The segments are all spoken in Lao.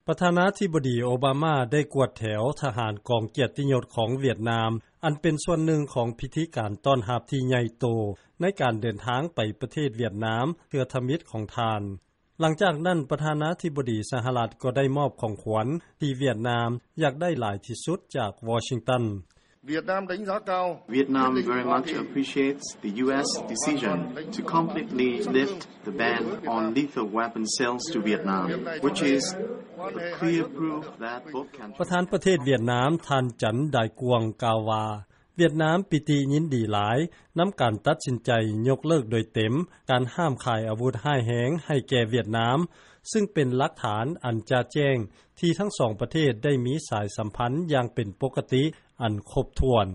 ປະທານາທິບໍດີ ໂອບາມາ ໄດ້ກວດແຖວທະຫານກອງກຽດຕິຍົດຂອງຫວຽດນາມ ອັນເປັນສ່ວນໜຶ່ງຂອງພິທີການຕ້ອນຮັບທີ່ໃຫຍ່ໂຕ ໃນການເດີນທາງໄປປະເທດຫວຽດນາມ ເທື່ອທຳອິດຂອງທ່ານ. ຫຼັງຈາກນັ້ນ ປະທານາທິບໍດີສະຫະລັດ ກໍໄດ້ມອບຂອງຂວັນທີ່ຫວຽດນາມຢາກໄດ້ຫຼາຍທີ່ສຸດຈາກວໍຊິງຕັນ. Vietnam very much appreciates the U S decision to completely lift the ban on lethal weapon sales to Vietnam, which is a clear proof that both countries ປະທານປະເທດຫວຽດນາມ ທ່ານ ຈັນ ດາຍກວງ ກ່າວວ່າ ຫວຽດນາມປີຕິຍິນດີຫຼາຍນຳການຕັດສິນໃຈຍົກເລີກໂດຍເຕັມການຫ້າມຂາຍອາວຸດຮ້າຍແຮງໃຫ້ແກ່ຫວຽດນາມ ຊຶ່ງເປັນຫຼັກຖານອັນຈະແຈ້ງທີ່ທັງສອງປະເທດໄດ້ມີສາຍສຳພັນຢ່າງເປັນປົກກະຕິອັນຄົບຖ້ວນ.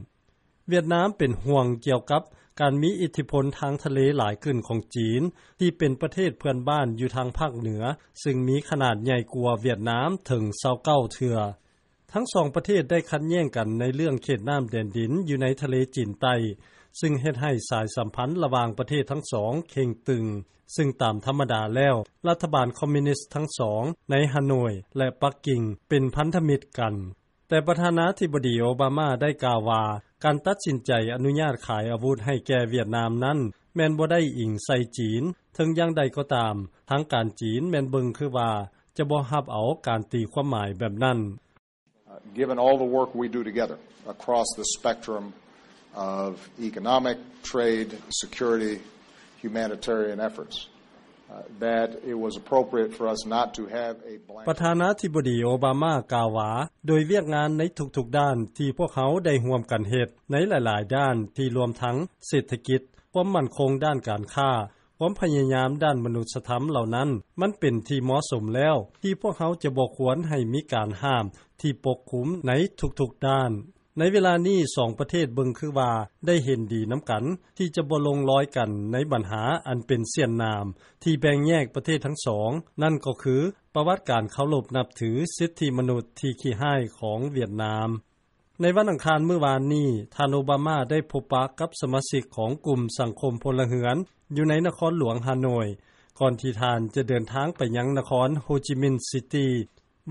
ຫວຽດນາມເປັນຫ່ວງກ່ຽວກັບການມີອິດທິພົນທາງທະເລຫຼາຍຂຶ້ນຂອງຈີນ ທີ່ເປັນປະເທດເພື່ອນບ້ານຢູ່ທາງພາກເໜືອ ຊຶ່ງມີຂະໜາດໃຫຍ່ກວ່າຫວຽດນາມເຖິງຊາວເກົ້າເທື່ອ. ທັງສອງປະເທດໄດ້ຂັດແຍ່ງກັນໃນເລື່ອງເຂດນ້ຳແດນດິນຢູ່ໃນທະເລຈີນໃຕ້ ຊຶ່ງເຮັດໃຫ້ສາຍສຳພັນລະຫວ່າງປະເທດທັງສອງເຄັ່ງຕຶງ ຊຶ່ງຕາມທຳມະດາແລ້ວ ລັດຖະບານຄອມມິວນິສທັງສອງໃນຮາໂນຍ ແລະ ປັກກິ່ງເປັນພັນທະມິດກັນ. ແຕ່ປະທານາທິບໍດີໂອບາມາໄດ້ກ່າວວ່າ ການຕັດສິນໃຈອະນຸຍາດຂາຍອາວຸດໃຫ້ແກ່ຫວຽດນາມນັ້ນ ແມ່ນບໍ່ໄດ້ອີງໃສ່ຈີນ. ເຖິງຢ່າງໃດກໍຕາມ ທາງການຈີນແມ່ນເບິ່ງຄືວ່າຈະບໍ່ຮັບເອົາການຕີຄວາມໝາຍແບບນັ້ນ. Uh, given all the work we do together across the spectrum of economic, trade, security, humanitarian efforts, uh, that it was appropriate for us not to have a blanket ປະທານາທິບໍດີໂອບາມາກ່າວວ່າ ໂດຍວຽກງານໃນທຸກໆດ້ານທີ່ພວກເຮົາໄດ້ຮ່ວມກັນເຮັດໃນຫຼາຍໆດ້ານ ທີ່ລວມທັງເສດຖະກິດ, ຄວາມໝັ້ນຄົງດ້ານການຄ້າ, ຄວາມພະຍາຍາມດ້ານມະນຸດສະທຳເຫຼົ່ານັ້ນ ມັນເປັນທີ່ເໝາະສົມແລ້ວ ທີ່ພວກເຮົາຈະບໍ່ຄວນໃຫ້ມີການຫ້າມທີ່ປົກຄຸມໃນທຸກໆດ້ານ. ໃນເວລານີ້ ສອງປະເທດເບິ່ງຄືວ່າໄດ້ເຫັນດີນຳກັນ ທີ່ຈະບໍ່ລົງລອຍກັນໃນບັນຫາອັນເປັນສ່ຽນໜາມທີ່ແບ່ງແຍກປະເທດທັງສອງ ນັ້ນກໍຄືປະຫວັດການເຄົາລົບນັບຖືສິດທິມະນຸດທີ່ຂີ້ຮ້າຍຂອງຫວຽດນາມ. ໃນວັນອັງຄານມື້ວານນີ້ ທ່ານໂອບາມາໄດ້ພົບປະກັບສະມາຊິກຂອງກຸ່ມສັງຄົມພົນລະເຮືອນ ຢູ່ໃນນະຄອນຫຼວງຮາໂນຍ ກ່ອນທີ່ທ່ານຈະເດີນທາງໄປຍັງນະຄອນໂຮຈິມິນຊິຕີ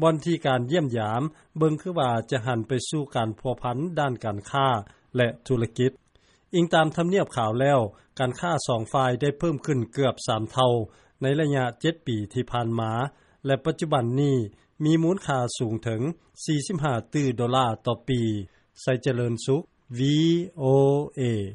ບ່ອນທີ່ການຢ້ຽມຢາມເບິ່ງຄືວ່າຈະຫັນໄປສູ່ການພົວພັນດ້ານການຄ້າ ແລະ ທຸລະກິດ. ອີງຕາມທຳນຽບຂາວແລ້ວ ການຄ້າສອງຝ່າຍໄດ້ເພີ່ມຂຶ້ນເກືອບສາມເທົ່າໃນໄລຍະເຈັດປີທີ່ຜ່ານມາ ແລະ ປັດຈຸບັນນີ້ມີມູນຄ່າສູງເຖິງສີ່ສິບຫ້າຕື້ໂດລາຕໍ່ປີ. ໄຊຈະເລີນສຸກ ວີໂອເອ.